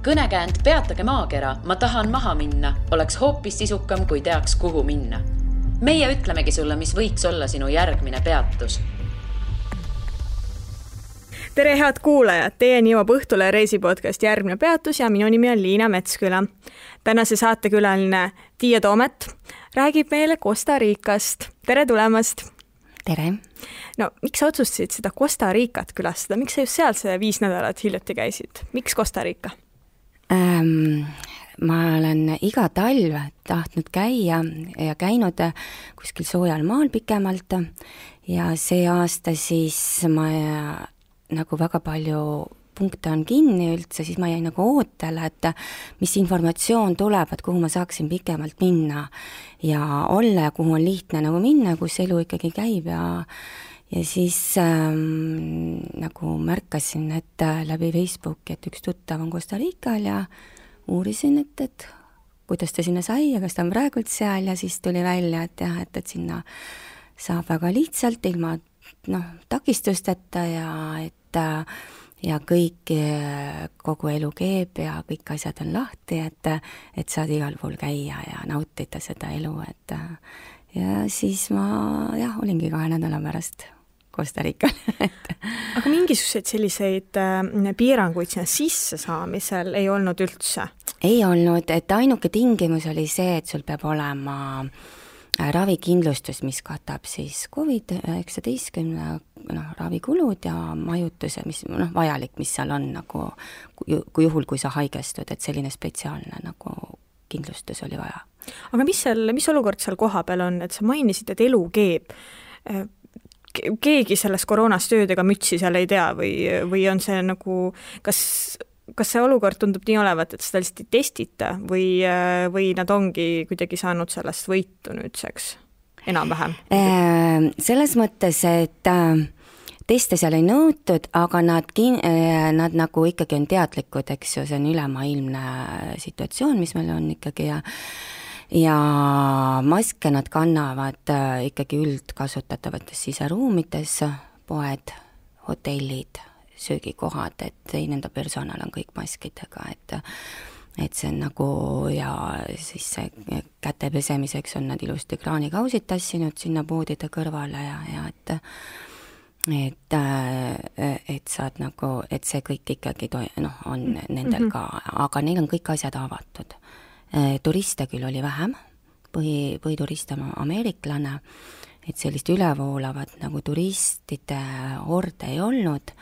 Kõnekäänd Peatage maakera, ma tahan maha minna, oleks hoopis sisukam, kui teaks, kuhu minna. Meie ütlemegi sulle, mis võiks olla sinu järgmine peatus. Tere head kuulajad, teieni jõuab Õhtule reisipodcast Järgmine peatus ja minu nimi on Liina Metsküla. Tänase saatekülaline Tiia Toomet räägib meile Costa Ricast. Tere tulemast! Tere! No, miks sa otsustasid seda Costa Ricat külastada? Miks sa just seal see 5 nädalat hiljuti käisid? Miks Costa Rica? Ma olen iga talv tahtnud käia ja käinud kuskil soojal maal pikemalt ja see aasta siis ma nagu väga palju punkte on kinni üldse, siis ma jäin nagu ootele, et mis informatsioon tuleb, et kuhu ma saaksin pikemalt minna ja olla ja kuhu on lihtne nagu minna, kus elu ikkagi käib ja siis nagu märkasin, et läbi Facebooki, et üks tuttav on Costa Rical ja uurisin, et kuidas ta sinna sai ja kas ta on praegult seal ja siis tuli välja, et jah, et sinna saab väga lihtsalt ilma takistusteta ja kõik, kogu elu keeb ja kõik asjad on lahti, et saad igal pool käia ja nautida seda elu, ja siis ma olingi 2 nädala pärast Costa Rical. Aga mingisuguseid selliseid piiranguid sinna sisse saamisel ei olnud üldse? Ei olnud, et ainuke tingimus oli see, et sul peab olema ravikindlustus, mis katab siis COVID-19 ravikulud ja majutuse, mis vajalik, mis seal on nagu, kui juhul, kui sa haigestud, et selline spetsiaalne nagu kindlustus oli vaja. Aga mis olukord seal koha peal on, et sa mainisid, et elu keeb? Keegi sellest koroonast töödega mütsi seal ei tea või on see nagu, kas see olukord tundub nii olevat, et seda lihtsalt ei testita või nad ongi kuidagi saanud sellest võitu nüüdseks enam-vähem? Selles mõttes, et teste seal ei nõutud, aga nad nagu ikkagi on teadlikud, eks ju, see on ülemaailmne situatsioon, mis meil on ikkagi ja maske nad kannavad ikkagi üldkasutatavates siseruumides, poed, hotellid, söögikohad, et nende personal on kõik maskidega, et see on nagu ja siis see käte pesemiseks on nad ilusti kraanikausid tassinud sinna poodide kõrvale ja et saad nagu, et see kõik ikkagi on nendel ka, aga neil on kõik asjad avatud. Turiste küll oli vähem, põhituriste on ameeriklane, et sellist ülevoolavat nagu turistide horde ei olnud,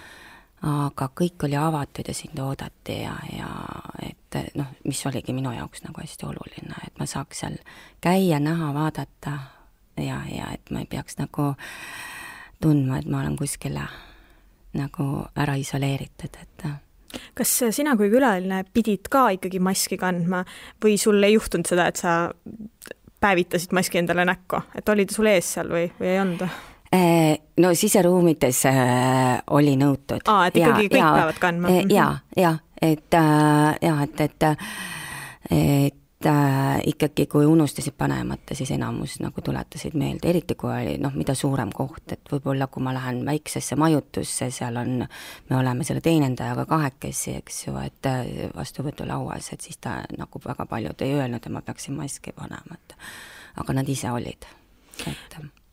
aga kõik oli avatud ja sind oodati ja et mis oligi minu jaoks nagu hästi oluline, et ma saaks seal käia, näha, vaadata ja et ma ei peaks nagu tundma, et ma olen kuskile nagu ära isoleeritud, et Kas sina kui külaline pidid ka ikkagi maski kandma või sul ei juhtunud seda, et sa päevitasid maski endale näkku, et oli ta sul ees seal või ei olnud? No siseruumides oli nõutud. Et ikkagi kõik peavad kandma? Et ikkagi kui unustasid panemata, siis enamus nagu tuletasid meelde, eriti kui oli mida suurem koht, et võib-olla kui ma lähen väiksesse majutusse, seal me oleme selle teenendajaga 2, eks ju, et vastuvõtulauas, et siis ta nagu väga paljud ei öelnud, et ma peaksin maski panema, aga nad ise olid.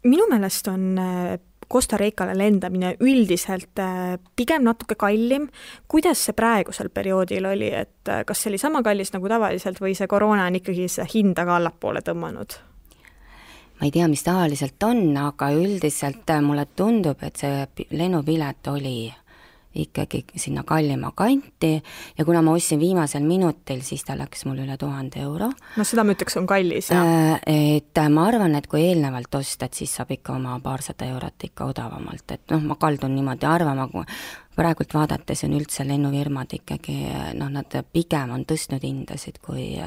Minu meelest on Costa Ricale lendamine üldiselt pigem natuke kallim. Kuidas see praegusel perioodil oli, et kas see oli sama kallis nagu tavaliselt või see koroona on ikkagi see hinda ka allapoole tõmmanud? Ma ei tea, mis tavaliselt on, aga üldiselt mulle tundub, et see lennupilet oli ikkagi sinna kallima kanti ja kuna ma ostsin viimasel minutil, siis ta läks mul üle 1000 euro. No seda ma ütleks on kallis, et ma arvan, et kui eelnevalt ostad, siis saab ikka oma 200 eurot ikka odavamalt, et ma kaldun niimoodi arvama, kui praegult vaadates on üldse lennufirmad ikkagi, nad pigem on tõstnud hindasid, kui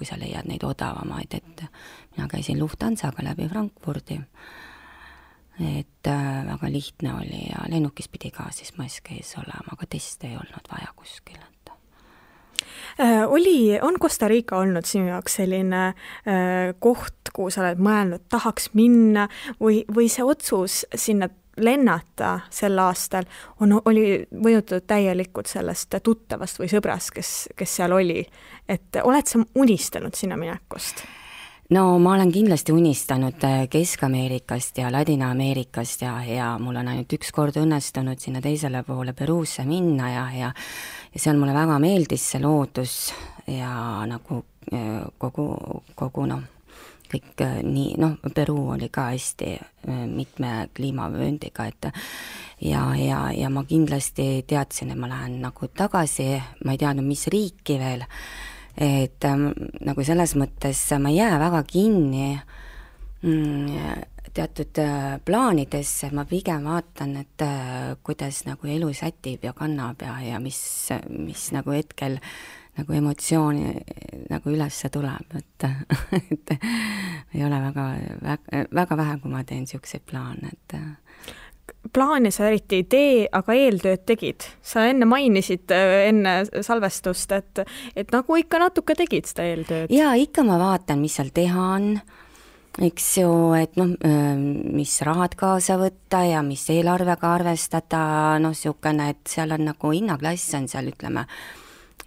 sa leiad neid odavamaid, et mina käisin Lufthansaga läbi Frankfurdi. Et väga lihtne oli ja lennukis pidi ka siis mask ees olema, aga teste ei olnud vaja kuskil. On Costa Rica olnud sinu jaoks selline koht, kuhu sa oled mõelnud, tahaks minna või see otsus sinna lennata sel aastal, oli mõjutatud täielikult sellest tuttavast või sõbrast, kes seal oli. Et oled sa unistanud sinna minekust? No ma olen kindlasti unistanud Kesk-Ameerikast ja Ladina-Ameerikast ja mul on ainult üks kord õnnestunud sinna teisele poole Peruusse minna ja seal mulle väga meeldis see loodus ja nagu kogu kõik nii, Peruu oli ka hästi mitme kliimavööndiga, et ja ma kindlasti teadsin, et ma lähen nagu tagasi, ma ei teadnud, mis riiki veel, et nagu selles mõttes ma ei jää väga kinni teatud plaanidesse, ma pigem vaatan, et kuidas nagu elu sätib ja kannab ja mis nagu hetkel nagu emotsiooni nagu ülesse tuleb, et ei ole väga vähe, kui ma teen niisuguseid plaane, et plaane sa eriti ei tee, aga eeltööd tegid. Sa enne mainisid enne salvestust, et nagu ikka natuke tegid seda eeltööd. Jaa, ikka ma vaatan, mis seal teha on, eks ju, et mis rahad kaasa võtta ja mis eelarvega arvestada, niisugune, et seal on nagu hinnaklass on seal, ütleme,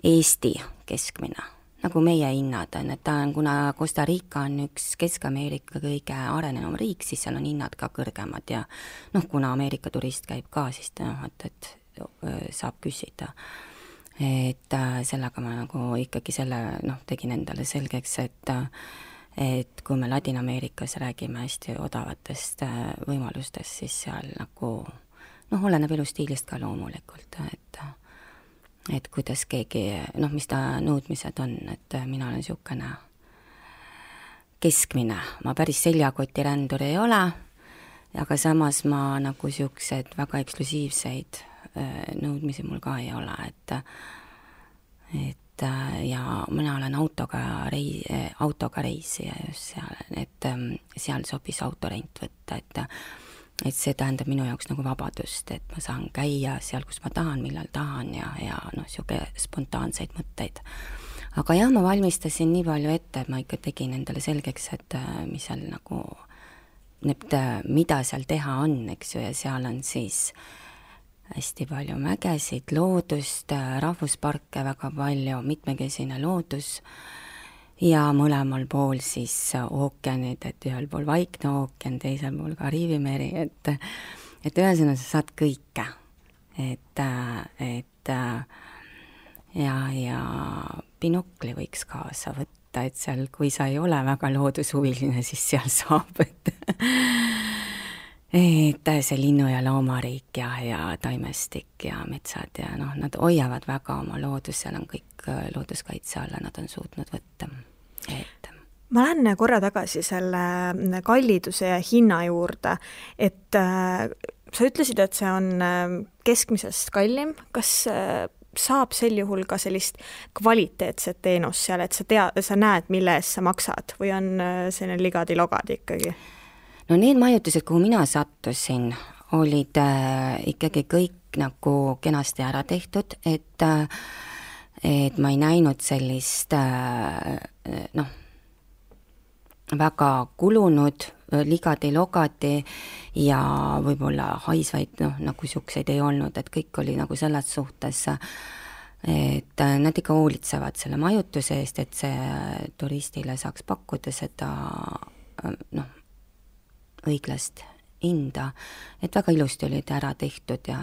Eesti keskmine, nagu meie hinnad on, et ta on, kuna Costa Rica on üks Kesk-Ameerika kõige arenenum riik, siis seal on hinnad ka kõrgemad ja kuna Ameerika turist käib ka, siis et saab küsida. Et sellega ma nagu ikkagi tegin endale selgeks, et kui me Ladina-Ameerikas räägime hästi odavatest võimalustest, siis seal nagu oleneb elustiilist ka loomulikult, et kuidas keegi, mis ta nõudmised on, et mina olen niisugune keskmine, ma päris seljakotirändur ei ole, aga samas ma nagu niisugused väga eksklusiivseid nõudmisi mul ka ei ole, et ja mina olen autoga reisija just seal, et seal sobis autorent võtta, et see tähendab minu jaoks nagu vabadust, et ma saan käia seal, kus ma tahan, millal tahan ja niisugune spontaanseid mõtteid. Aga jah, ma valmistasin nii palju ette, et ma ikka tegin endale selgeks, et mis seal nagu, mida seal teha on, eks ju, ja seal on siis hästi palju mägesid, loodust, rahvusparke väga palju, mitmekesine loodus ja mõlemal pool siis ookeanid, et ühel pool Vaikne ookean, teisel pool Kariibi meri, et ühesõnaga sa saad kõike, et ja binokli võiks kaasa võtta, et seal, kui sa ei ole väga loodushuviline, siis seal saab, et see linnu- ja loomariik ja taimestik ja metsad ja nad hoiavad väga oma loodus, seal on kõik looduskaitse alla, nad on suutnud võtta. Ma lähen korra tagasi selle kalliduse ja hinna juurde, et sa ütlesid, et see on keskmisest kallim, kas saab sel juhul ka sellist kvaliteetset teenust seal, et sa näed, mille eest sa maksad või on selline ligadi-logadi ikkagi? No need majutused, kuhu mina sattusin, olid ikkagi kõik nagu kenasti ära tehtud, et ma ei näinud sellist väga kulunud ligadi-logadi ja võib-olla haisvaid, nagu siukseid ei olnud, et kõik oli nagu selles suhtes, et nad ikka hoolitsevad selle majutuse eest, et see turistile saaks pakkuda seda õiglast hinda, et väga ilusti olid ära tehtud ja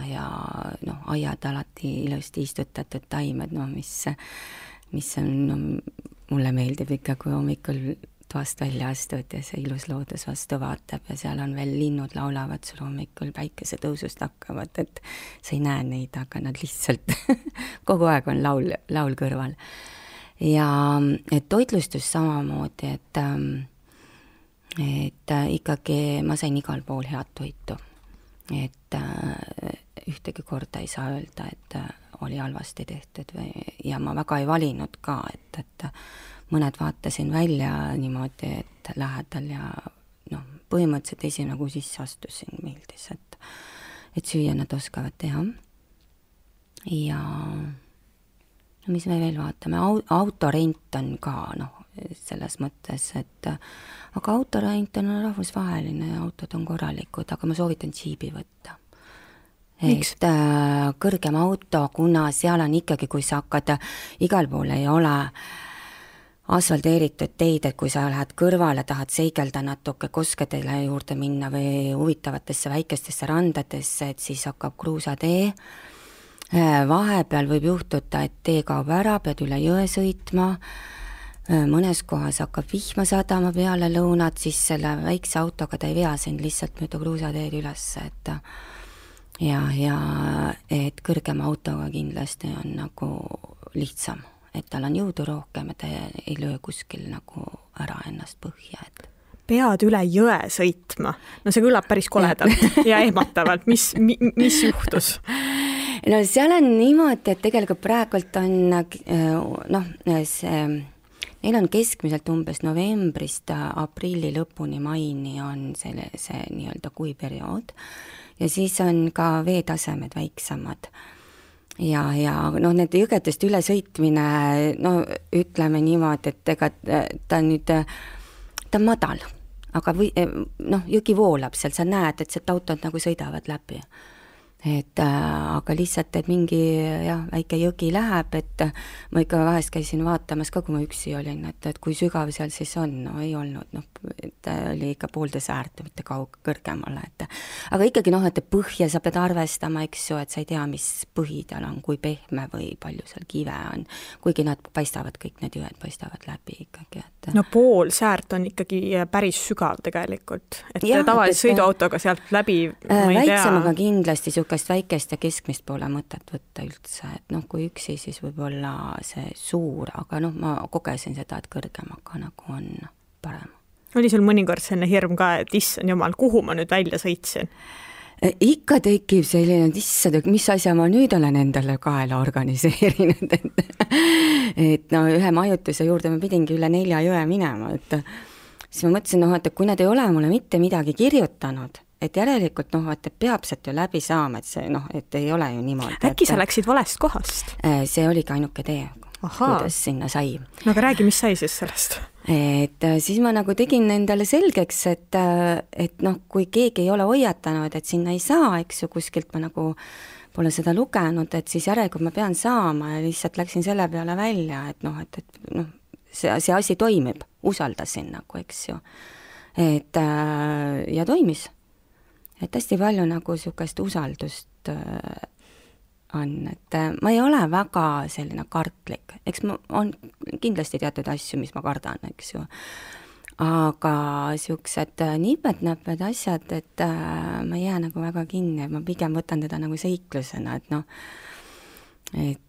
aiad alati ilusti istutatud taimed, mis on, mulle meeldib ikka, kui hommikul toast välja astud ja see ilus loodus vastu vaatab ja seal on veel linnud laulavad sul hommikul päikesetõusust hakkavad, et sa ei näe neid, aga nad lihtsalt kogu aeg on laul kõrval. Ja et toitlustus samamoodi, et ikkagi ma sain igal pool head toitu, et ühtegi korda ei saa öelda, et oli halvasti tehtud ja ma väga ei valinud ka, et mõned vaatasin välja niimoodi, et lähedal ja põhimõtteliselt esimene, kui sisse astusin, meeldis, et süüa nad oskavad teha. Ja mis me veel vaatame, autorent on ka, selles mõttes, et aga autorent on rahvusvaheline ja autod on korralikud, aga ma soovitan džiibi võtta. Miks? Et kõrgem auto, kuna seal on ikkagi, kui sa hakkad, igal pool ei ole asfalteeritud teid, et kui sa lähed kõrvale, tahad seigelda natuke koskedele juurde minna või huvitavatesse väikestesse randadesse, et siis hakkab kruusatee. Vahepeal võib juhtuda, et tee kaob ära, pead üle jõe sõitma, mõnes kohas hakkab vihma sadama peale lõunat, siis selle väikse autoga ta ei vea sind lihtsalt mööda kruusateed üles, et ja et kõrgema autoga kindlasti on nagu lihtsam, et tal on jõudu rohkem ja ta ei löö kuskil nagu ära ennast põhja, et pead üle jõe sõitma. No see kõlab päris koledalt ja ehmatavalt. Mis juhtus? No seal on niimoodi, et tegelikult praegult on neil on keskmiselt umbes novembrist aprilli lõpuni maini on see nii-öelda kuiperiood ja siis on ka veetasemed väiksemad. Ja need jõgedest üle sõitmine, ütleme niimoodi, et ega ta on madal, aga jõgi voolab seal, sa näed, et sealt autod nagu sõidavad läbi. Aga lihtsalt, et mingi väike jõgi läheb, et ma ikka vahest käisin vaatamas ka, kui ma üksi olin, et kui sügav seal siis on, ei olnud, et oli ikka poolde säärt, mitte kõrgemale, aga ikkagi et põhja sa pead arvestama, eks ju, et sa ei tea, mis põhi tal on, kui pehme või palju seal kive on, kuigi nad paistavad, kõik need jõed paistavad läbi ikkagi, et no pool säärt on ikkagi päris sügav tegelikult, et tavaliselt sõiduautoga sealt läbi ma ei tea. Väiksemaga kindlasti väikest ja keskmist pole mõtet võtta üldse, et kui üksi, siis võib olla see suur, aga ma kogesin seda, et kõrgemaga nagu on parem. Oli sul mõnikord selline hirm ka, et issand jumal, kuhu ma nüüd välja sõitsin? Ikka tekib selline, et mis asja ma nüüd olen endale kaela organiseerinud, et ühe majutuse juurde ma pidingi üle 4 jõe minema, et siis ma mõtlesin, et kui nad ei ole mulle mitte midagi kirjutanud, et järelikult et peab sealt ju läbi saama, et see et ei ole ju niimoodi. Äkki sa läksid valest kohast? See oligi ainuke tee, kuidas sinna sai. No aga räägi, mis sai siis sellest? Et siis ma nagu tegin endale selgeks, et kui keegi ei ole hoiatanud, et sinna ei saa, eks ju, kuskilt ma nagu pole seda lugenud, et siis järelikult ma pean saama ja lihtsalt läksin selle peale välja, et see asi toimib, usaldasin nagu, eks ju. Ja toimis. Et hästi palju nagu sükest usaldust on, et ma ei ole väga selline kartlik, eks on kindlasti teatud asju, mis ma kardan, eks ju, aga süksed nipet-näped asjad, et ma ei jää nagu väga kinni, ma pigem võtan teda nagu seiklusena, et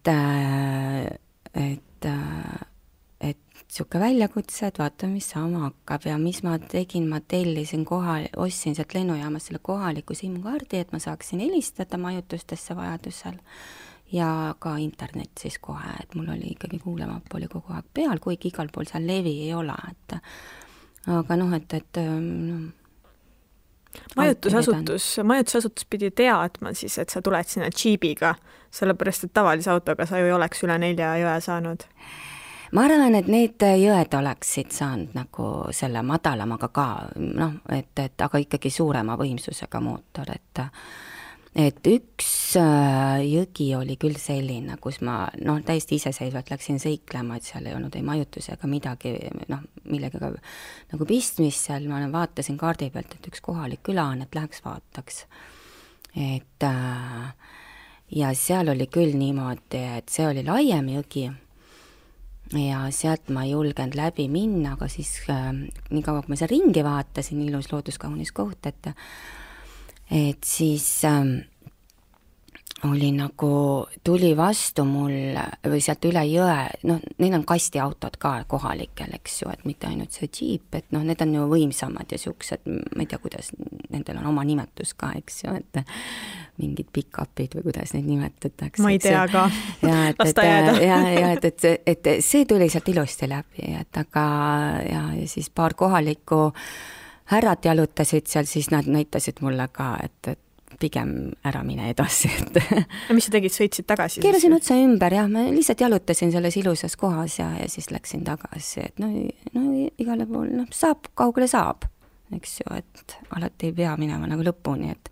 siuke väljakutsed, vaata, mis saama hakkab ja mis ma tegin, ma tellisin ostsin sealt lennujaamas selle kohaliku SIM-kaardi, et ma saaksin helistada majutustesse vajadusel ja ka internet siis kohe, et mul oli ikkagi kuulemapp oli kogu aeg peal, kuigi igal pool seal levi ei ole, aga majutusasutus pidi teadma siis, et sa tuled sinna džiibiga, sellepärast, et tavalise autoga sa ju ei oleks üle 4 jõe saanud. Ma arvan, et need jõed oleksid saanud nagu selle madalamaga ka, aga ikkagi suurema võimsusega mootor, et üks jõgi oli küll selline, kus ma täiesti iseseisvalt läksin seiklema, et seal ei olnud ei majutus ega midagi, millegagi nagu pistmist seal, ma vaatasin kaardi pealt, et üks kohalik küla on, et läheks vaataks. Ja seal oli küll niimoodi, et see oli laiem jõgi, ja sealt ma ei julgenud läbi minna, aga siis nii kaua, kui ma seal ringi vaatasin, ilus looduskaunis koht, et siis oli nagu, tuli vastu mul või sealt üle jõe, neil on kastiautod ka kohalikel, eks ju, et mitte ainult see džiip, et need on ju võimsamad ja siuksed, ma ei tea, kuidas nendel on oma nimetus ka, eks ju, et mingid pick-upid või kuidas neid nimetatakse. Ma ei tea ka, las ta jääda. Et see tuli sealt ilusti läbi, et aga ja siis paar kohalikku härrat jalutasid seal, siis nad näitasid mulle ka, et pigem ära mine edasi, et ja mis sa tegid, sõitsid tagasi? Keerasin otsa ümber, jah, ma lihtsalt jalutasin selles ilusas kohas ja siis läksin tagasi, et no igale pool, saab, kaugele saab, eks ju, et alati ei pea minema nagu lõpuni, et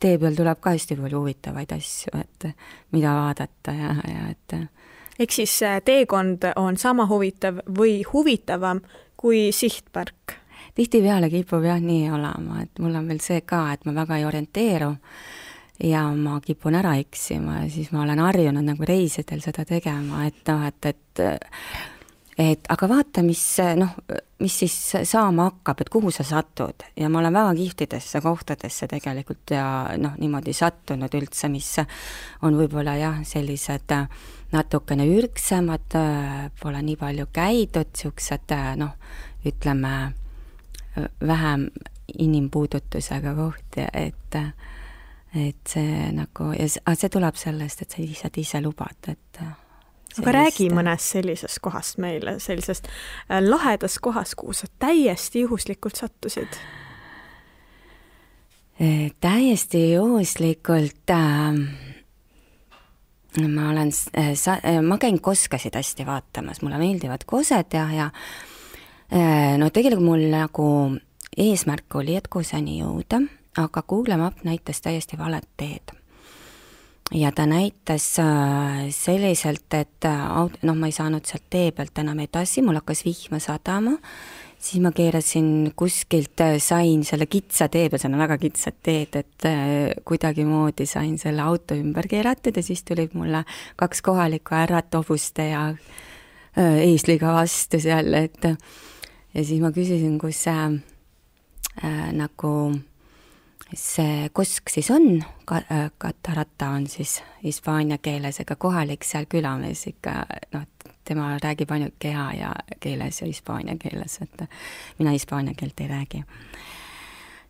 tee peal tuleb ka hästi palju huvitavaid asju, et mida vaadata ja et ehk siis teekond on sama huvitav või huvitavam kui sihtpark? Tihtipeale kipub jah nii olema, et mul on veel see ka, et ma väga ei orienteeru ja ma kipun ära eksima ja siis ma olen harjunud nagu reisidel seda tegema, et aga vaata, mis siis saama hakkab, et kuhu sa satud ja ma olen väga kihvtidesse kohtadesse tegelikult ja niimoodi sattunud üldse, mis on võib-olla jah, sellised natukene ürgsemad, pole nii palju käidud, siuksed ütleme vähem inimpuudutusega kohti, et see nagu, ja see tuleb sellest, et sa lihtsalt ise lubad, et aga räägi mõnest sellisest kohast meile, sellisest lahedast kohast, kuhu sa täiesti juhuslikult sattusid? Täiesti juhuslikult ma käin koskasid hästi vaatamas, mulle meeldivad kosed ja tegelikult mul nagu eesmärk oli, et kuseni jõuda, aga Google Map näitas täiesti valet teed. Ja ta näitas selliselt, et ma ei saanud sealt tee pealt enam edasi, mul hakkas vihma sadama, siis ma keerasin kuskilt, sain selle kitsa tee peal, see on väga kitsad teed, et kuidagi moodi sain selle auto ümber keeratud ja siis tulid mulle 2 kohalikku härrat hobuste ja eesliga vastu seal, et ja siis ma küsisin, kus nagu see kosk siis on, Catarata on siis hispaania keeles, ega kohalik seal külamees ikka, tema räägib ainult keha ja keeles ja hispaania keeles, et mina hispaania keelt ei räägi.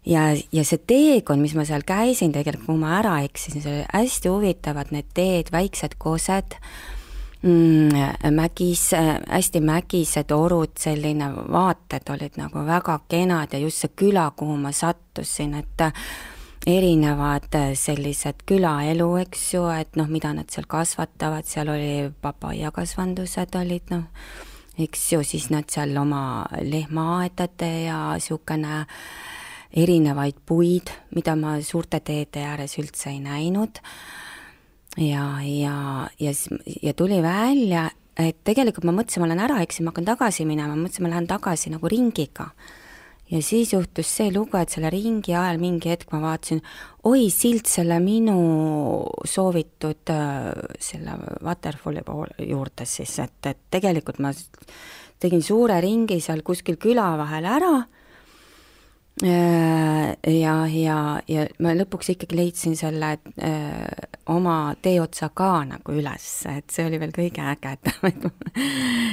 Ja see teekond, mis ma seal käisin, tegelikult kui ma ära eksisin, see oli hästi huvitavad need teed, väiksed kosed, hästi mägised orud, selline vaated olid nagu väga kenad ja just see küla, kuhu ma sattusin, et erinevad sellised külaelu, eks ju, et mida nad seal kasvatavad, seal oli papaiakasvandused olid, eks ju, siis nad seal oma lehmaaedade ja niisugune erinevaid puid, mida ma suurte teede ääres üldse ei näinud. Ja tuli välja, et tegelikult ma mõtlesin, ma olen ära eksin, ma hakkan tagasi minema, mõtlesin, ma lähen tagasi nagu ringiga. Ja siis juhtus see lugu, et selle ringi ajal mingi hetk ma vaatasin, oi, silt selle minu soovitud selle waterfalli juurde siis, et tegelikult ma tegin suure ringi seal kuskil küla vahel ära ja ma lõpuks ikkagi leidsin selle oma teeotsa ka nagu üles, et see oli veel kõige ägedam,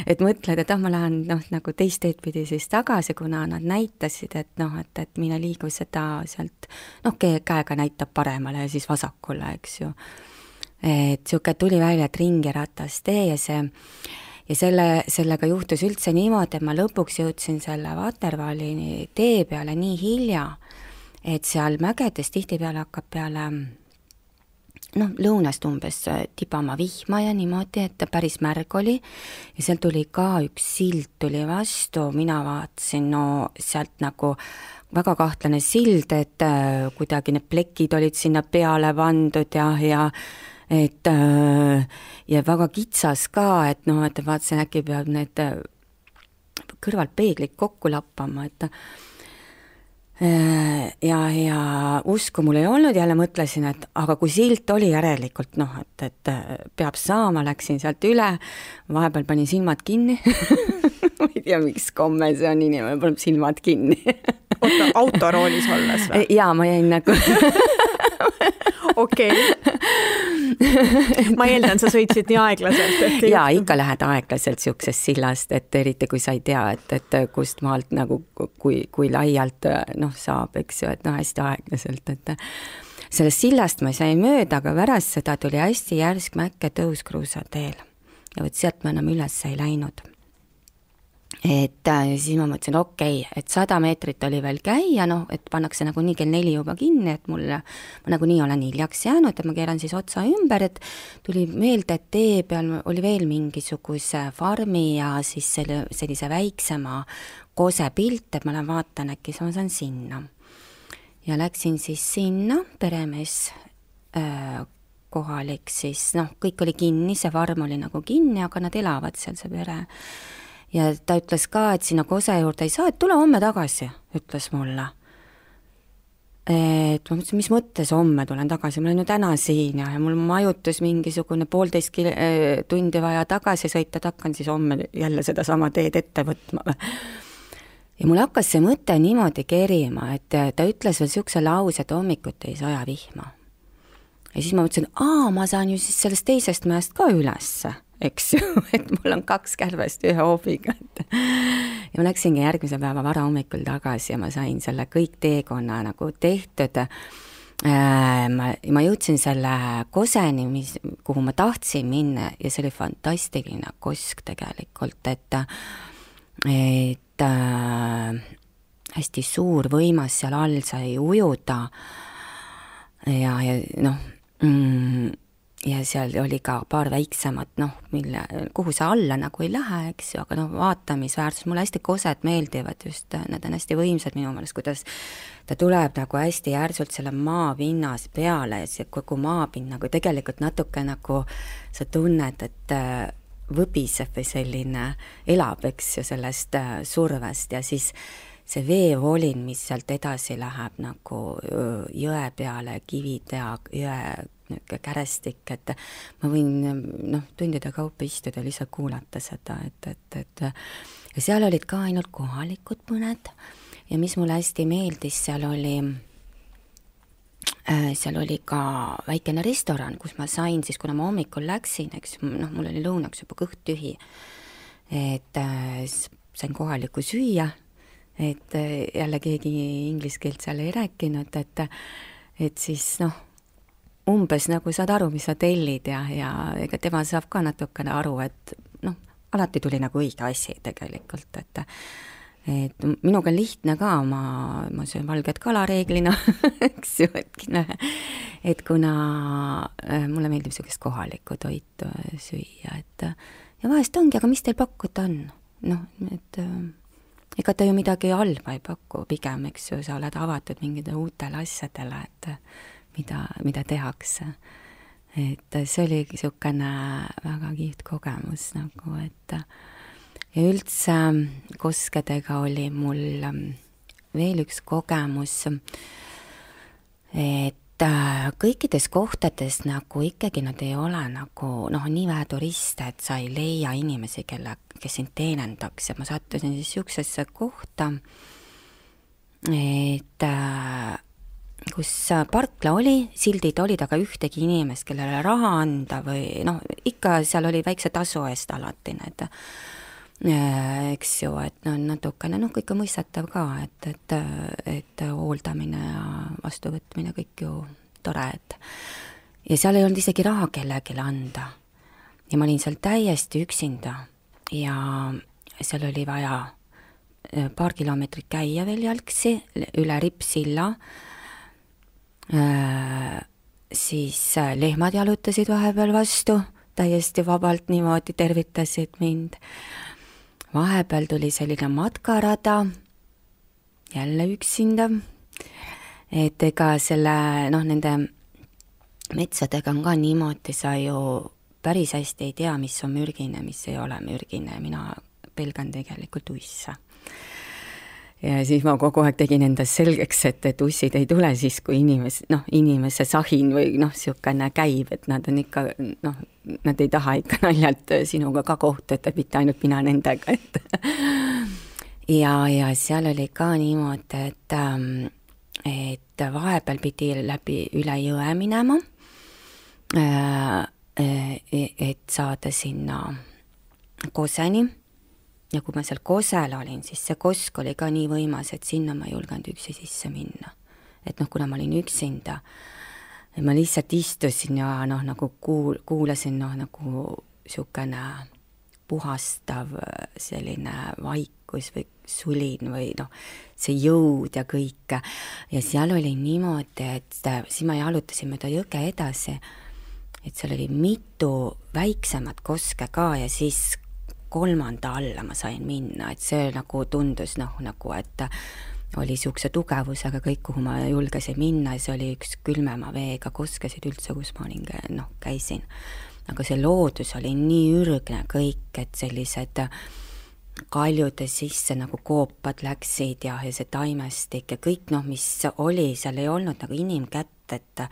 et mõtled, et ma lähen nagu teist teed pidi siis tagasi, kuna nad näitasid, et mine liigu seda sealt, käega näitab paremale ja siis vasakule, eks ju. Et siuke tuli välja, et ringi-ratas tee ja sellega juhtus üldse niimoodi, et ma lõpuks jõudsin selle Waterfalli tee peale nii hilja, et seal mägedes tihtipeale hakkab peale lõunast umbes tibama vihma ja niimoodi, et päris märg oli ja seal tuli ka üks sild tuli vastu, mina vaatasin sealt nagu väga kahtlane sild, et kuidagi need plekid olid sinna peale vandud ja väga kitsas ka, et vaatasin, äkki peab need kõrvalt peeglid kokku lappama, et ja usku mul ei olnud, jälle mõtlesin, et aga kui silt oli järelikult, et peab saama, läksin sealt üle, vahepeal panin silmad kinni ma ei tea, miks komme see on, inimene paneb silmad kinni oota, autoroolis olles või? Jaa, ma jäin nagu okei. Ma eeldan, sa sõitsid nii aeglaselt. Jaa, ikka lähed aeglaselt siuksest sillast, et eriti kui sa ei tea, et kust maalt nagu, kui laialt saab, eks ju, et hästi aeglaselt, et sellest sillast ma sain mööda, aga pärast seda tuli hästi järsk mäkke tõus kruusateel ja võt sealt ma enam üles ei läinud. et siis ma mõtlesin, okei, et 100 meetrit oli veel käia, noh, et pannakse nagunii kell 4 juba kinni, et ma nagunii olen hiljaks jäänud, et ma keeran siis otsa ümber, et tuli meelde, et tee peal oli veel mingisuguse farmi ja siis sellise väiksema kose pilt, et ma lähen vaatan, äkki ma saan sinna. Ja läksin siis sinna, peremees kohalik siis, noh, kõik oli kinni, see farm oli nagu kinni, aga nad elavad seal, see pere. Ja ta ütles ka, et sinna kose juurde ei saa, et tule homme tagasi, ütles mulle. Et ma mõtlesin, mis mõttes homme tulen tagasi, ma olen ju täna siin ja mul majutus mingisugune 1,5 tundi vaja tagasi sõita, et hakkan siis homme jälle seda sama teed ette võtma. Ja mul hakkas see mõte niimoodi kerima, et ta ütles veel siukse lause, et hommikut ei saja vihma. Ja siis ma mõtlesin, ma saan ju siis sellest teisest mäest ka ülesse, eks ju, et mul on 2 kärbest ühe hoobiga. Ja ma läksingi järgmise päeva vara hommikul tagasi ja ma sain selle kõik teekonna nagu tehtud. Ma jõudsin selle koseni, kuhu ma tahtsin minna ja see oli fantastiline kosk tegelikult, et hästi suur võimas seal all sai ujuda ja noh, ja seal oli ka paar väiksemat, noh, kuhu sa alla nagu ei lähe, eks ju, aga noh, vaatamisväärsus, mulle hästi kosed meeldivad just, nad on hästi võimsad minu meelest, kuidas ta tuleb nagu hästi järsult selle maapinnas peale ja see kogu maapind nagu tegelikult natuke nagu sa tunned, et võbiseb või selline elab, eks ju, sellest survest ja siis see veevolin, mis sealt edasi läheb nagu jõe peale, kivid ja jõe kärestik, et ma võin tundide kaupa istuda, lihtsalt kuulata seda, et ja seal olid ka ainult kohalikud mõned ja mis mulle hästi meeldis, seal oli ka väikene restoran, kus ma sain siis, kuna ma hommikul läksin, eks mul oli lõunaks juba kõht tühi, et sain kohalikku süüa, et jälle keegi inglise keelt seal ei rääkinud, et siis umbes nagu saad aru, mis sa tellid ja ega tema saab ka natukene aru, et alati tuli nagu õige asi tegelikult, et minuga on lihtne ka, ma söön valget kala reeglina, eks ju, et kuna mulle meeldib sellist kohalikku toitu süüa, et ja vahest ongi, aga mis teil pakkuda on? Et ega ta ju midagi halba ei paku, pigem, eks ju, sa oled avatud mingide uutele asjadele, et mida tehakse. Et see oli niisugune väga kihvt kogemus nagu, et ja üldse koskedega oli mul veel üks kogemus, et kõikides kohtades nagu ikkagi nad ei ole nagu nii vähe turiste, et sa ei leia inimesi, kes sind teenendaks ja ma sattusin siis niisugusesse kohta, et kus parkla oli, sildid olid, aga ühtegi inimest, kellele raha anda või ikka seal oli väikse tasu eest alati need, eks ju, et natukene, kõike mõistatav ka, et hooldamine ja vastuvõtmine kõik ju tore, et ja seal ei olnud isegi raha kellelegi anda. Ja ma olin seal täiesti üksinda ja seal oli vaja paar kilomeetrit käia veel jalgsi üle Rippsilla, siis lehmad jalutasid vahepeal vastu, täiesti vabalt niimoodi tervitasid mind. Vahepeal tuli selline matkarada, jälle üksinda, et ega selle, nende metsadega on ka niimoodi, sa ju päris hästi ei tea, mis on mürgine, mis ei ole mürgine, mina pelgan tegelikult uisse. Ja siis ma kogu aeg tegin endas selgeks, et ussid ei tule siis, kui inimese sahin või siukene käib, et nad on ikka, nad ei taha ikka naljalt sinuga ka kohtuda, et mitte ainult mina nendega, et ja seal oli ka niimoodi, et vahepeal pidi läbi üle jõe minema, et saada sinna koseni. Ja kui ma seal kosel olin, siis see kosk oli ka nii võimas, et sinna ma ei julgenud üksi sisse minna. Et kuna ma olin üksinda, ma lihtsalt istusin ja nagu kuulasin nagu siukene puhastav selline vaikus või sulin või noh, see jõud ja kõik. Ja seal oli niimoodi, et siis ma jalutasin mööda jõge edasi, et seal oli mitu väiksemat koske ka ja siis 3. alla ma sain minna, et see nagu tundus nagu, et oli niisuguse tugevusega kõik, kuhu ma julgesin minna ja see oli üks külmema veega koskesid üldse, kus ma olin, käisin. Aga see loodus oli nii ürgne kõik, et sellised kaljude sisse nagu koopad läksid ja see taimestik ja kõik mis oli, seal ei olnud nagu inimkätt, et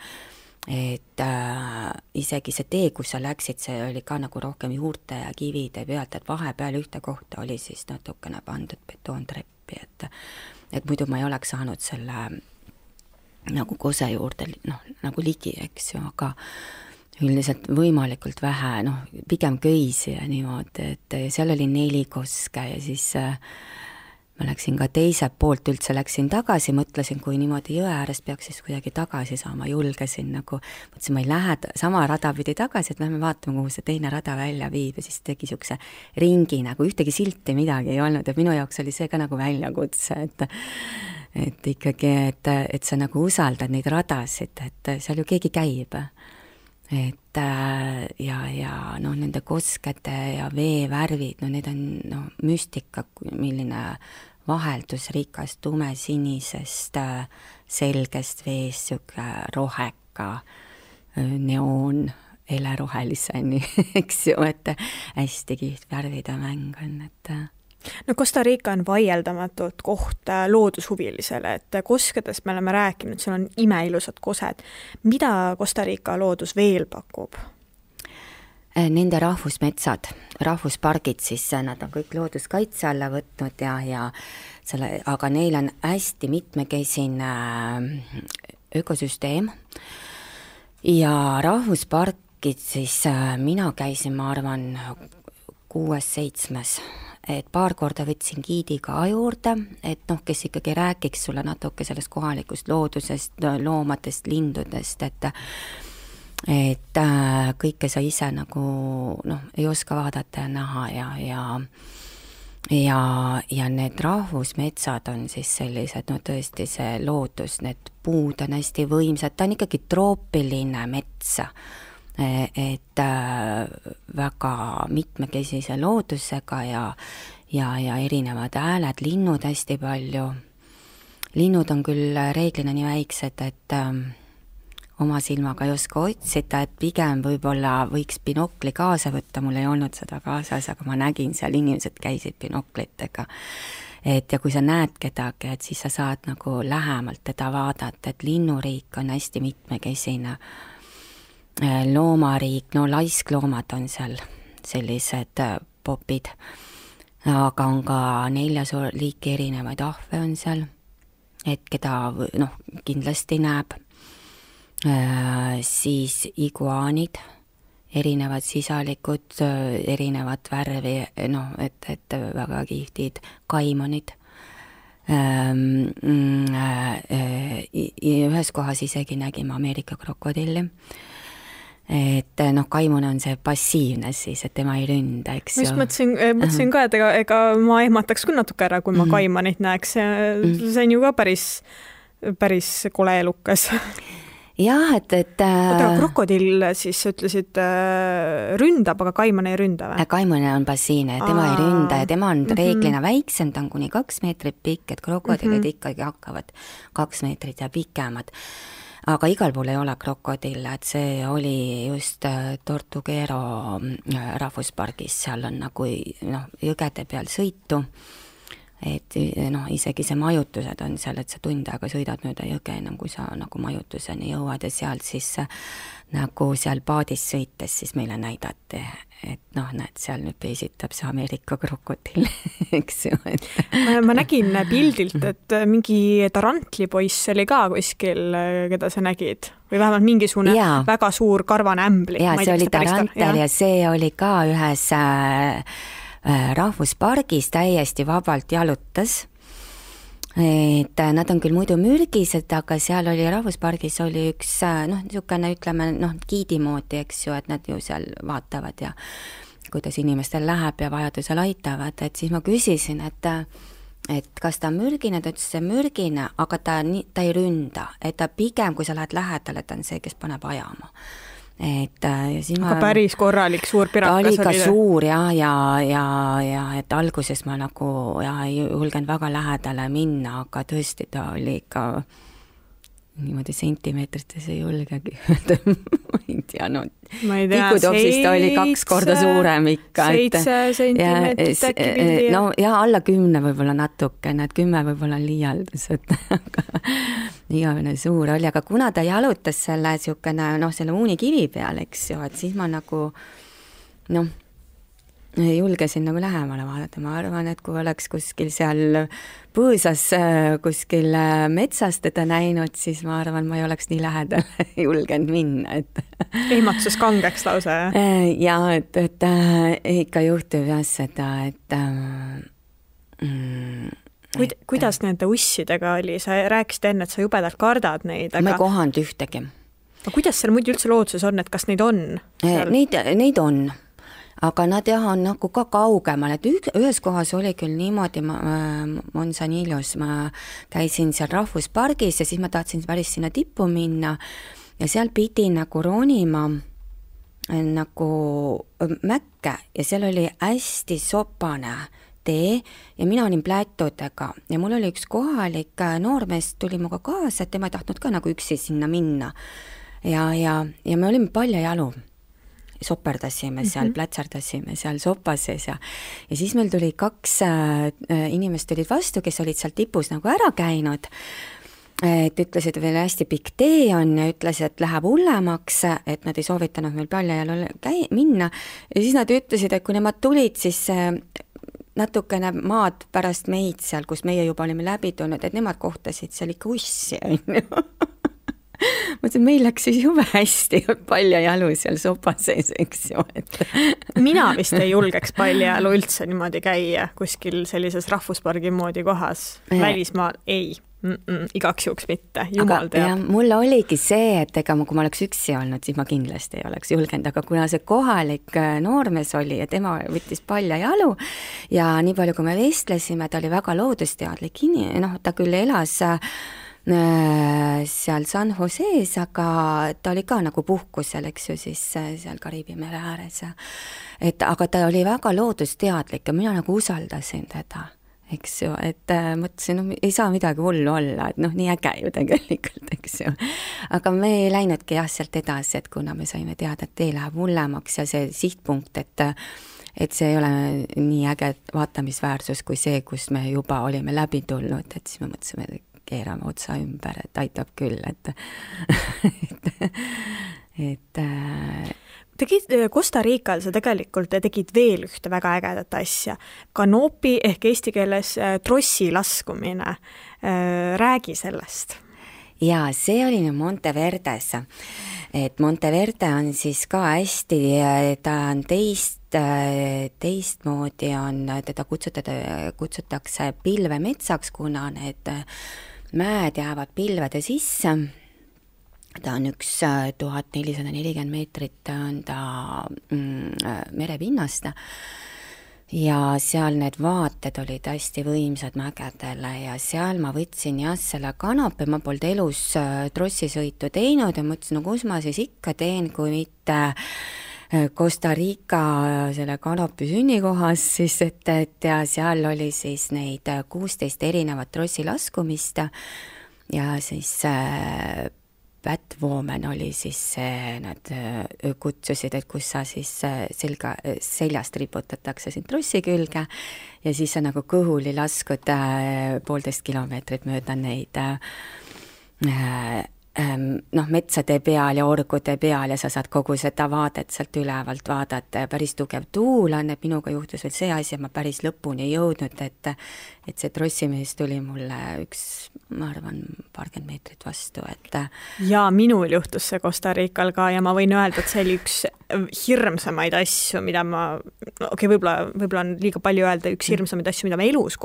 isegi see tee, kus sa läksid, see oli ka nagu rohkem juurte ja kivide pealt, et vahepeal ühte kohta oli siis natukene pandud betoontreppi, et muidu ma ei oleks saanud selle nagu kose juurde nagu ligi, eks ju, aga üldiselt võimalikult vähe, pigem köisi ja niimoodi, et seal oli 4 koske ja siis ma läksin ka teiselt poolt üldse, läksin tagasi, mõtlesin, kui niimoodi jõe äärest peaks siis kuidagi tagasi saama, julgesin nagu, mõtlesin, ma ei lähe sama rada pidi tagasi, et lähme vaatame, kuhu see teine rada välja viib ja siis tegi niisuguse ringi, nagu ühtegi silti midagi ei olnud ja minu jaoks oli see ka nagu väljakutse, et ikkagi, et sa nagu usaldad neid radasid, et seal ju keegi käib. Et ja nende koskete ja veevärvid, need on müstika, milline vaheldusrikas tumesinisest selgest veest, siuke roheka neoon heleroheliseni, eks ju, et hästi kiht värvide mäng on, et no Costa Rica on vaieldamatult koht loodushuvilisele, et koskedest me oleme rääkinud, seal on imeilusad kosed. Mida Costa Rica loodus veel pakub? Nende rahvusmetsad, rahvuspargid, siis nad on kõik looduskaitse alla võtnud ja selle, aga neil on hästi mitmekesine ökosüsteem ja rahvuspargid siis mina käisin, ma arvan, 6-7, et paar korda võtsin giidi ka juurde, et kes ikkagi rääkiks sulle natuke sellest kohalikust loodusest, loomadest, lindudest, et kõike sa ise nagu ei oska vaadata ja näha ja need rahvusmetsad on siis sellised, tõesti see loodus, need puud on hästi võimsad, ta on ikkagi troopiline mets, et väga mitmekesise loodusega ja erinevad hääled, linnud hästi palju. Linnud on küll reeglina nii väiksed, et oma silmaga ei oska otsida, et pigem võib-olla võiks binokli kaasa võtta, mul ei olnud seda kaasas, aga ma nägin seal, inimesed käisid binoklitega. Et ja kui sa näed kedagi, et siis sa saad nagu lähemalt teda vaadata, et linnuriik on hästi mitmekesine. Loomariik, laiskloomad on seal sellised popid, aga on ka 4 liiki erinevaid ahve on seal, et keda kindlasti näeb, siis iguaanid, erinevad sisalikud, erinevad värvi, et väga kihvtid, kaimonid, ühes kohas isegi nägime Ameerika krokodilli, et kaimune on see passiivne siis, et tema ei ründa, eks ju. Mõtlesin ka, et ega ma ehmataks küll natuke ära, kui ma kaimanit näeks. See on ju ka päris kole elukas. Jah, et krokodill siis ütlesid ründab, aga kaiman ei ründa või? Kaimane on passiivne, tema ei ründa ja tema on reeglina väiksem, ta on kuni 2 meetrit pikk, et krokodillid ikkagi hakkavad 2 meetrit ja pikemad. Aga igal pool ei ole krokodille, et see oli just Tortuguero rahvuspargis, seal on nagu jõgede peal sõitu, et isegi see majutused on seal, et sa tund aega sõidad mööda jõge enam, kui sa nagu majutuseni jõuad ja sealt siis nagu seal paadis sõites siis meile näidati, et näed, seal nüüd peesitab see Ameerika krokodill, eks ju. Ma nägin pildilt, et mingi tarantlipoiss oli ka kuskil, keda sa nägid, või vähemalt mingisugune väga suur karvane ämbli. Ja see oli tarantel ja see oli ka ühes rahvuspargis täiesti vabalt jalutas. Et nad on küll muidu mürgised, aga seal oli rahvuspargis oli üks niisugune, ütleme, giidi moodi, eks ju, et nad ju seal vaatavad ja kuidas inimestel läheb ja vajadusel aitavad, et siis ma küsisin, et kas ta on mürgine, ta ütles, see mürgine, aga ta ei ründa, et ta pigem, kui sa lähed lähedale, ta on see, kes paneb ajama. Ja siis aga päris korralik suur pirakas oli ka suur ja et alguses ma nagu ei julgenud väga lähedale minna, aga tõesti ta oli ikka niimoodi sentimeetrites ei julgegi ma ei tea, tikutopsist oli 2 korda suurem ikka. 7 sentimeetrit äkki pildi. No ja alla 10 võib-olla natuke, 10 võib-olla on liialdus, et igavene suur oli, aga kuna ta jalutas selle selle uunikivi peal, eks ju, et siis ma nagu julgesin nagu lähemale vaadata, ma arvan, et kui oleks kuskil seal põõsas kuskil metsas teda näinud, siis ma arvan, ma ei oleks nii lähedal julgenud minna, et ehmatus kangeks lausa, jah? Ja, et ikka juhtub jah seda, et kuidas nende ussidega oli? Sa rääkisid enne, et sa jubedalt kardad neid, aga... Ma ei kohanud ühtegi. Aga kuidas seal muidu üldse looduses on, et kas neid on? Neid on. Aga nad on nagu ka kaugemal, et ühes kohas oli küll niimoodi, Manzanillos, ma käisin seal rahvuspargis ja siis ma tahtsin päris sinna tippu minna ja seal pidi nagu ronima nagu mäkke ja seal oli hästi sopane tee ja mina olin plätudega ja mul oli üks kohalik noormees, tuli muga kaasa, et tema ei tahtnud ka nagu üksi sinna minna ja me olime paljajalu. Soperdasime seal, plätsardasime seal sopases ja siis meil tuli 2 inimest tulid vastu, kes olid seal tipus nagu ära käinud, et ütlesid, veel hästi pikk tee on ja ütles, et läheb hullemaks, et nad ei soovitanud meil paljajalu minna ja siis nad ütlesid, et kui nemad tulid, siis natukene maad pärast meid seal, kus meie juba olime läbi tulnud, et nemad kohtasid seal ikka ussi, on ju. Mõtlesin, meil läks siis jube hästi paljajalu seal sopa sees, eks ju. Mina vist ei julgeks paljajalu üldse niimoodi käia kuskil sellises rahvuspargi moodi kohas. Välismaal ei. Igaks juhuks mitte, jumal teab. Ja mul oligi see, et ega kui ma oleks üksi olnud, siis ma kindlasti ei oleks julgenud, aga kuna see kohalik noormees oli ja tema võttis paljajalu ja nii palju, kui me vestlesime, ta oli väga loodusteadlik, ta küll elas seal San Jose's, aga ta oli ka nagu puhkusel, eks ju, siis seal Kariibi mere ääres. Aga ta oli väga loodusteadlik ja mina nagu usaldasin teda, eks ju, et mõtlesin, ei saa midagi hullu olla, et nii äge ju tegelikult, eks ju. Aga me ei läinudki sealt edasi, et kuna me saime teada, et tee läheb hullemaks ja see sihtpunkt, et see ei ole nii äge vaatamisväärsus kui see, kus me juba olime läbi tulnud, et siis me mõtlesime, keerame otsa ümber, et aitab küll, Tegid Costa Rical, sa tegelikult tegid veel ühte väga ägedat asja. Kanopi ehk eesti keeles trossi laskumine. Räägi sellest. Ja see oli Monteverdes. Et Monteverde on siis ka hästi, ta on teistmoodi on, teda kutsutakse pilvemetsaks, kuna need mäed jäävad pilvede sisse. Ta on 1440 meetrit on ta merepinnast ja seal need vaated olid hästi võimsad mägedele ja seal ma võtsin selle kanopi, ma polnud elus trossisõitu teinud ja mõtlesin, kus ma siis ikka teen, kui mitte Costa Rica selle kanopi sünnikohas, siis et ja seal oli siis neid 16 erinevat trossi laskumist ja siis Batwoman oli siis nad kutsusid, et kus sa siis seljast riputatakse siin trossi külge ja siis sa nagu kõhuli laskud 1,5 kilomeetrit mööda neid metsade peal ja orgude peal ja sa saad kogu seda vaadet sealt ülevalt vaadata ja päris tugev tuul on, et minuga juhtus veel see asi, ma päris lõpuni ei jõudnud, et see trossimees tuli mulle ma arvan, 20 meetrit vastu, et... Ja minul juhtus see Costa Rical ka ja ma võin öelda, et see oli üks hirmsamaid asju, mida ma, võib-olla on liiga palju öelda, üks hirmsamaid asju, mida ma elus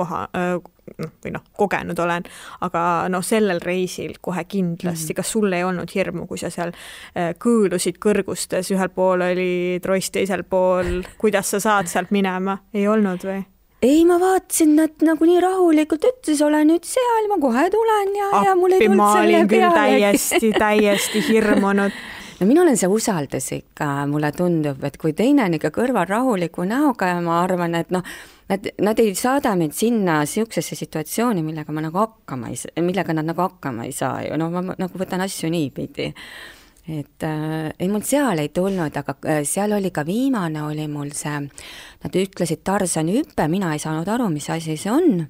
kogenud olen, aga sellel reisil kohe kindlasti, kas sul ei olnud hirmu, kui sa seal kõõlusid kõrgustes, ühel pool oli tross, teisel pool, kuidas sa saad sealt minema, ei olnud või? Ei, ma vaatasin, et nagu nii rahulikult ütles, olen nüüd seal, ma kohe tulen ja mul ei tulnud selle peale. täiesti hirmunud. No mina olen see usaldus ikka, mulle tundub, et kui teine on ikka kõrval rahuliku näoga ja ma arvan, et nad ei saada meid sinna siuksesse situatsiooni, millega nad nagu hakkama ei saa ju, ma nagu võtan asju niipidi. Et ei mul seal ei tulnud, aga seal oli ka viimane, oli mul see, nad ütlesid Tarzani hüppe, mina ei saanud aru, mis asi see on.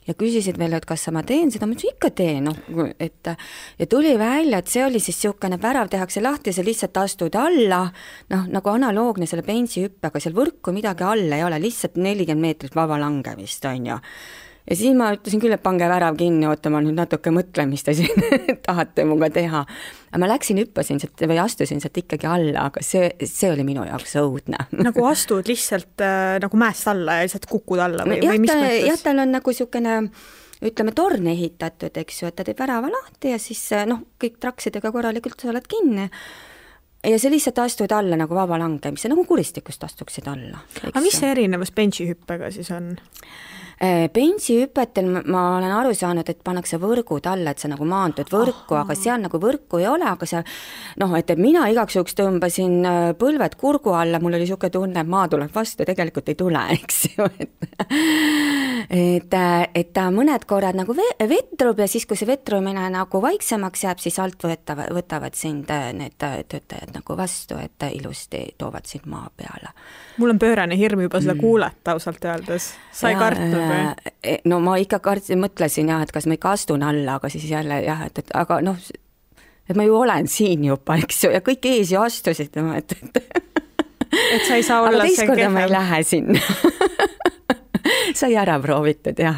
Ja küsisid veel, et kas ma teen seda, ma ütlesin, ikka teen, ja tuli välja, et see oli siis siukene värav, tehakse lahti, sa lihtsalt astud alla, nagu analoogne selle bensihüppega, seal võrku midagi all ei ole, lihtsalt 40 meetrit vaba langemist, on ju. Ja siis ma ütlesin küll, et pange värav kinni, oota, ma nüüd natuke mõtlen, mis te siin tahate muga teha. Aga ma läksin, hüppasin sealt või astusin sealt ikkagi alla, aga see oli minu jaoks õudne. Nagu astud lihtsalt nagu mäest alla ja lihtsalt kukud alla või mis mõttes? Jah, tal on nagu siukene, ütleme, torn ehitatud, eks ju, et ta teeb värava lahti ja siis kõik traksidega korralikult sa oled kinni. Ja see lihtsalt astud alla nagu vaba langemise, nagu kuristikust astuksid alla. Aga mis see erinevus bensihüppega siis on? Bensihüpetel ma olen aru saanud, et pannakse võrgud alla, et sa nagu maandud võrku, aga seal nagu võrku ei ole, aga seal, et mina igaks juhuks tõmbasin põlved kurgu alla, mul oli siuke tunne, et maa tuleb vastu, tegelikult ei tule, eks ju, et ta mõned korrad nagu vetrub ja siis, kui see vetrumine nagu vaiksemaks jääb, siis alt võtavad sind need töötajad nagu vastu, et ilusti toovad sind maa peale. Mul on pöörane hirm juba seda kuulata ausalt öeldes. Sa ei kartnud või? No ma ikka mõtlesin jah, et kas ma ikka astun alla, aga siis jälle jah, aga et ma ju olen siin juba, eks ju, ja kõik ees ju astusid, et sa ei saa olla aga teist korda ma ei lähe sinna. Sai ära proovitud jah,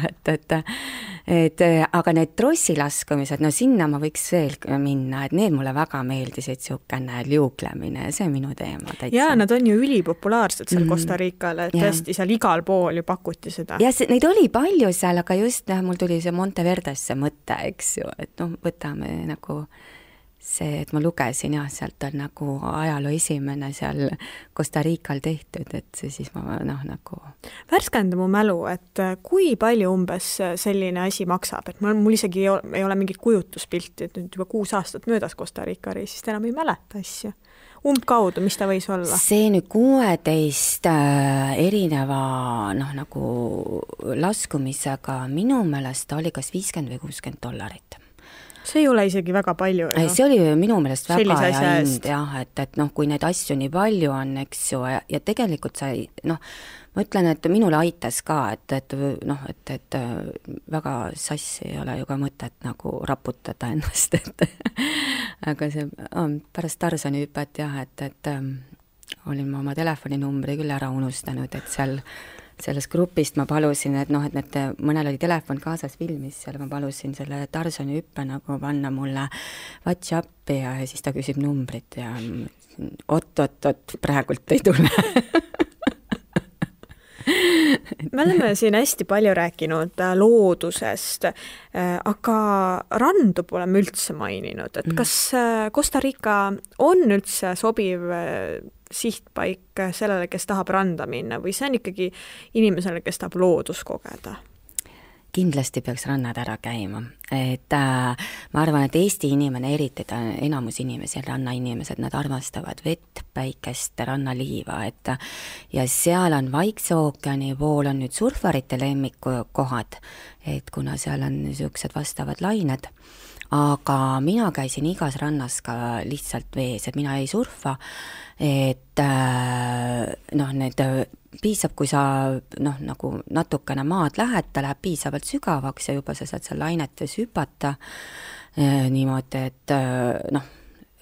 aga need trossilaskumised, sinna ma võiks veel minna, et need mulle väga meeldisid, siukene liuglemine, see on minu teema täitsa. Ja nad on ju ülipopulaarsed seal Costa Ricale, et tõesti seal igal pool ju pakuti seda. Ja neid oli palju seal, aga just mul tuli see Monteverdesse mõte, eks ju, et võtame nagu see, et ma lugesin jah, sealt on nagu ajaloo esimene seal Costa Rical tehtud, et see siis ma nagu... Värskenda mu mälu, et kui palju umbes selline asi maksab, et mul isegi ei ole mingit kujutuspilti, et nüüd juba 6 aastat möödas Costa Rica reisist, enam ei mäleta asja. Umbkaudu, mis ta võis olla? See nüüd 16 erineva nagu laskumisega minu meelest oli kas $50 või $60. See ei ole isegi väga palju. See oli minu meelest väga hea hind, jah, et kui neid asju nii palju on, eks ju, ja tegelikult sa ei, ma ütlen, et minule aitas ka, et väga sassi ei ole ju ka mõtet nagu raputada ennast, aga see pärast Tarzani hüpet jah, et olin ma oma telefoninumbri küll ära unustanud, et selles grupist ma palusin, et mõnel oli telefon kaasas filmis, seal ma palusin selle Tarzani hüppe nagu panna mulle WhatsAppi ja siis ta küsib numbrit ja oot, praegult ei tule. Me oleme siin hästi palju rääkinud loodusest, aga randu pole me üldse maininud, et kas Costa Rica on üldse sobiv sihtpaik sellele, kes tahab randa minna või see on ikkagi inimesele, kes tahab loodus kogeda? Kindlasti peaks rannad ära käima, et ma arvan, et Eesti inimene, eriti enamus inimesi, rannainimesed, nad armastavad vett, päikest, rannaliiva, ja seal on Vaikse ookeani pool on nüüd surfarite lemmikukohad, et kuna seal on niisugused vastavad lained, aga mina käisin igas rannas ka lihtsalt vees, et mina ei surfa, et need piisab, kui sa nagu natukene maad lähed, ta läheb piisavalt sügavaks ja juba sa saad seal lainetes hüpata niimoodi, et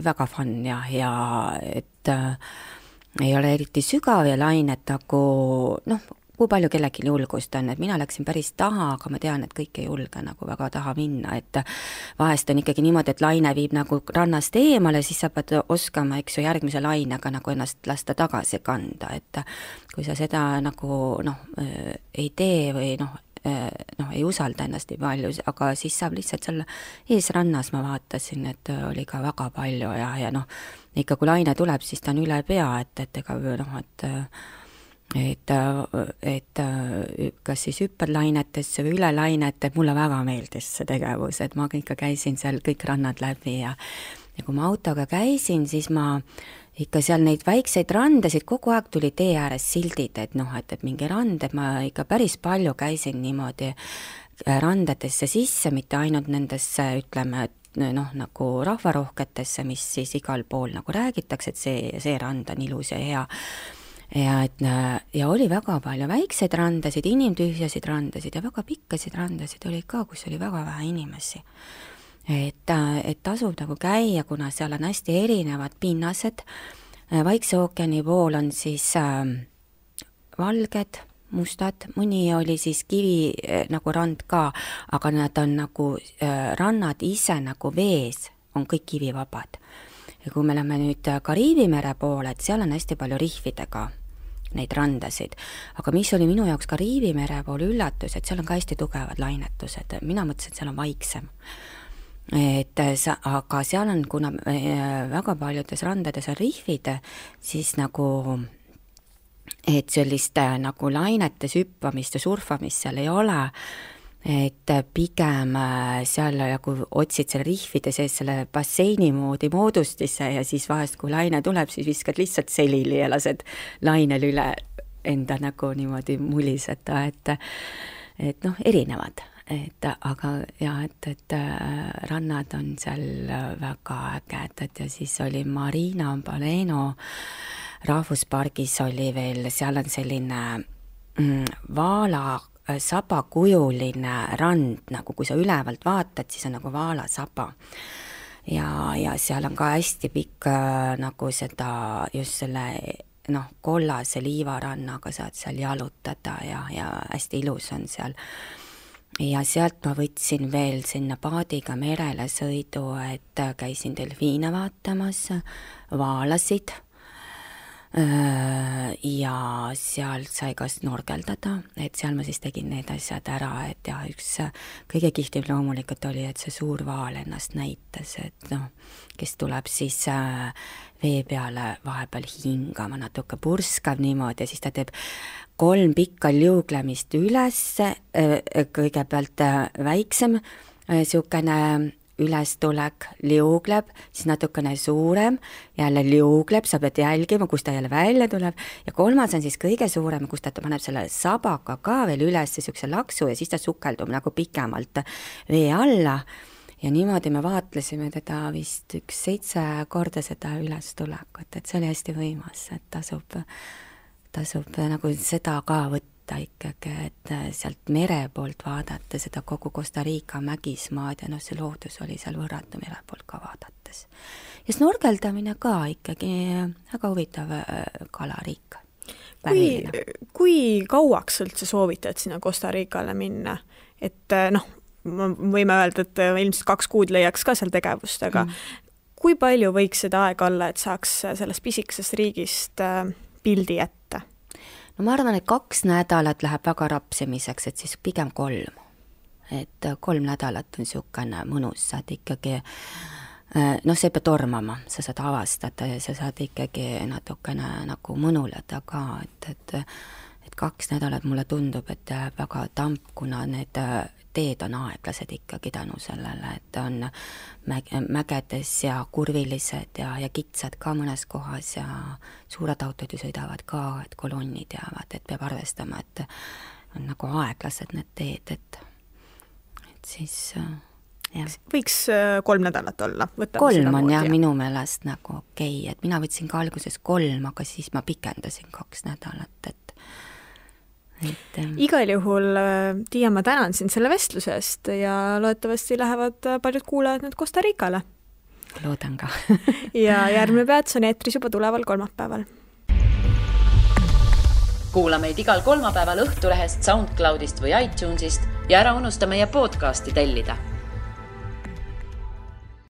väga fun ja et ei ole eriti sügav ja lained nagu kui palju kellelgi julgust on, et mina läksin päris taha, aga ma tean, et kõik ei julge nagu väga taha minna, et vahest on ikkagi niimoodi, et laine viib nagu rannast eemale, siis sa pead oskama, eks ju, järgmise lainega nagu ennast lasta tagasi kanda, et kui sa seda nagu ei tee või ei usalda ennast nii palju, aga siis saab lihtsalt seal eesrannas, ma vaatasin, et oli ka väga palju ja ikka kui laine tuleb, siis ta on üle pea, et ega et kas siis hüppad lainetesse või üle lainete, mulle väga meeldis see tegevus, et ma ikka käisin seal kõik rannad läbi ja kui ma autoga käisin, siis ma ikka seal neid väikseid randasid, kogu aeg tuli tee ääres sildid, et mingi rand, et ma ikka päris palju käisin niimoodi randadesse sisse, mitte ainult nendesse, ütleme, nagu rahvarohketesse, mis siis igal pool nagu räägitakse, et see rand on ilus ja hea. Ja oli väga palju väikseid randasid, inimtühjasid randasid ja väga pikkasid randasid oli ka, kus oli väga vähe inimesi. Et tasub nagu käia, kuna seal on hästi erinevad pinnased. Vaikse ookeani pool on siis valged, mustad, mõni oli siis kivi nagu rand ka, aga nad on nagu rannad ise nagu vees, on kõik kivivabad. Ja kui me lähme nüüd Kariibi mere poole, et seal on hästi palju rihvidega neid randasid, aga mis oli minu jaoks Kariibi mere pool üllatus, et seal on ka hästi tugevad lainetused, mina mõtlesin, et seal on vaiksem. Aga seal on, kuna väga paljudes randades on rihvid, siis nagu et sellist nagu lainetes hüppamist ja surfamist seal ei ole, et pigem seal nagu otsid selle rihvide sees selle basseini moodi moodustisse ja siis vahest, kui laine tuleb, siis viskad lihtsalt selili ja lased lainel üle enda nagu niimoodi muliseda, et erinevad. Aga et rannad on seal väga ägedad ja siis oli Marina Baleno rahvuspargis oli veel, seal on selline vaala sabakujuline rand, nagu kui sa ülevalt vaatad, siis on nagu vaalasaba. Ja seal on ka hästi pikk nagu seda, just selle kollase liivarannaga saad seal jalutada ja hästi ilus on seal. Ja sealt ma võtsin veel sinna paadiga merele sõidu, et käisin delfiine vaatamas, vaalasid ja seal sai ka snorkeldada, et seal ma siis tegin need asjad ära, et ja üks kõige kihvtim loomulikult oli, et see suur vaal ennast näitas, et kes tuleb siis vee peale vahepeal hingama, natuke purskav niimoodi ja siis ta teeb 3 pikka liuglemist üles, kõigepealt väiksem, siukene ülestulek, liugleb, siis natukene suurem, jälle liugleb, sa pead jälgima, kus ta jälle välja tuleb ja 3. on siis kõige suurem, kus ta paneb selle sabaga ka veel üles siukse laksu ja siis ta sukeldub nagu pikemalt vee alla ja niimoodi me vaatlesime teda vist 7 korda seda ülestulekut, et see oli hästi võimas, et tasub nagu seda ka võtta ikkagi, et sealt mere poolt vaadata seda kogu Costa Rica mägismaad ja see loodus oli seal võrratu mere poolt ka vaadates. Ja snorkeldamine ka ikkagi väga huvitav kalariik. Kui kauaks üldse soovitad sinna Costa Ricale minna? Et võime öelda, et ilmselt 2 kuud leiaks ka seal tegevust, aga kui palju võiks seda aega olla, et saaks sellest pisikesest riigist pildi ette? No ma arvan, et 2 nädalat läheb väga rapsimiseks, et siis pigem 3. Et 3 nädalat on siukene mõnus, saad ikkagi, see peab tormama, sa saad avastada ja sa saad ikkagi natukene nagu mõnuleda ka, et 2 nädalat mulle tundub, et väga tamp, kuna need teed on aeglased ikkagi tänu sellele, et on mägedes ja kurvilised ja kitsad ka mõnes kohas ja suured autod ju sõidavad ka, et kolonnid jäävad, et peab arvestama, et on nagu aeglased need teed, et siis jah. Võiks 3 nädalat olla? 3 on jah minu meelest nagu okei, et mina võtsin ka alguses 3, aga siis ma pikendasin 2 nädalat, et igal juhul, Tiia, ma tänan sind selle vestluse eest ja loodetavasti lähevad paljud kuulajad nüüd Costa Ricale. Loodan ka. Ja järgmine peats on eetris juba tuleval kolmapäeval. kuula meid igal kolmapäeval Õhtulehest, SoundCloudist või iTunesist ja ära unusta meie podcasti tellida.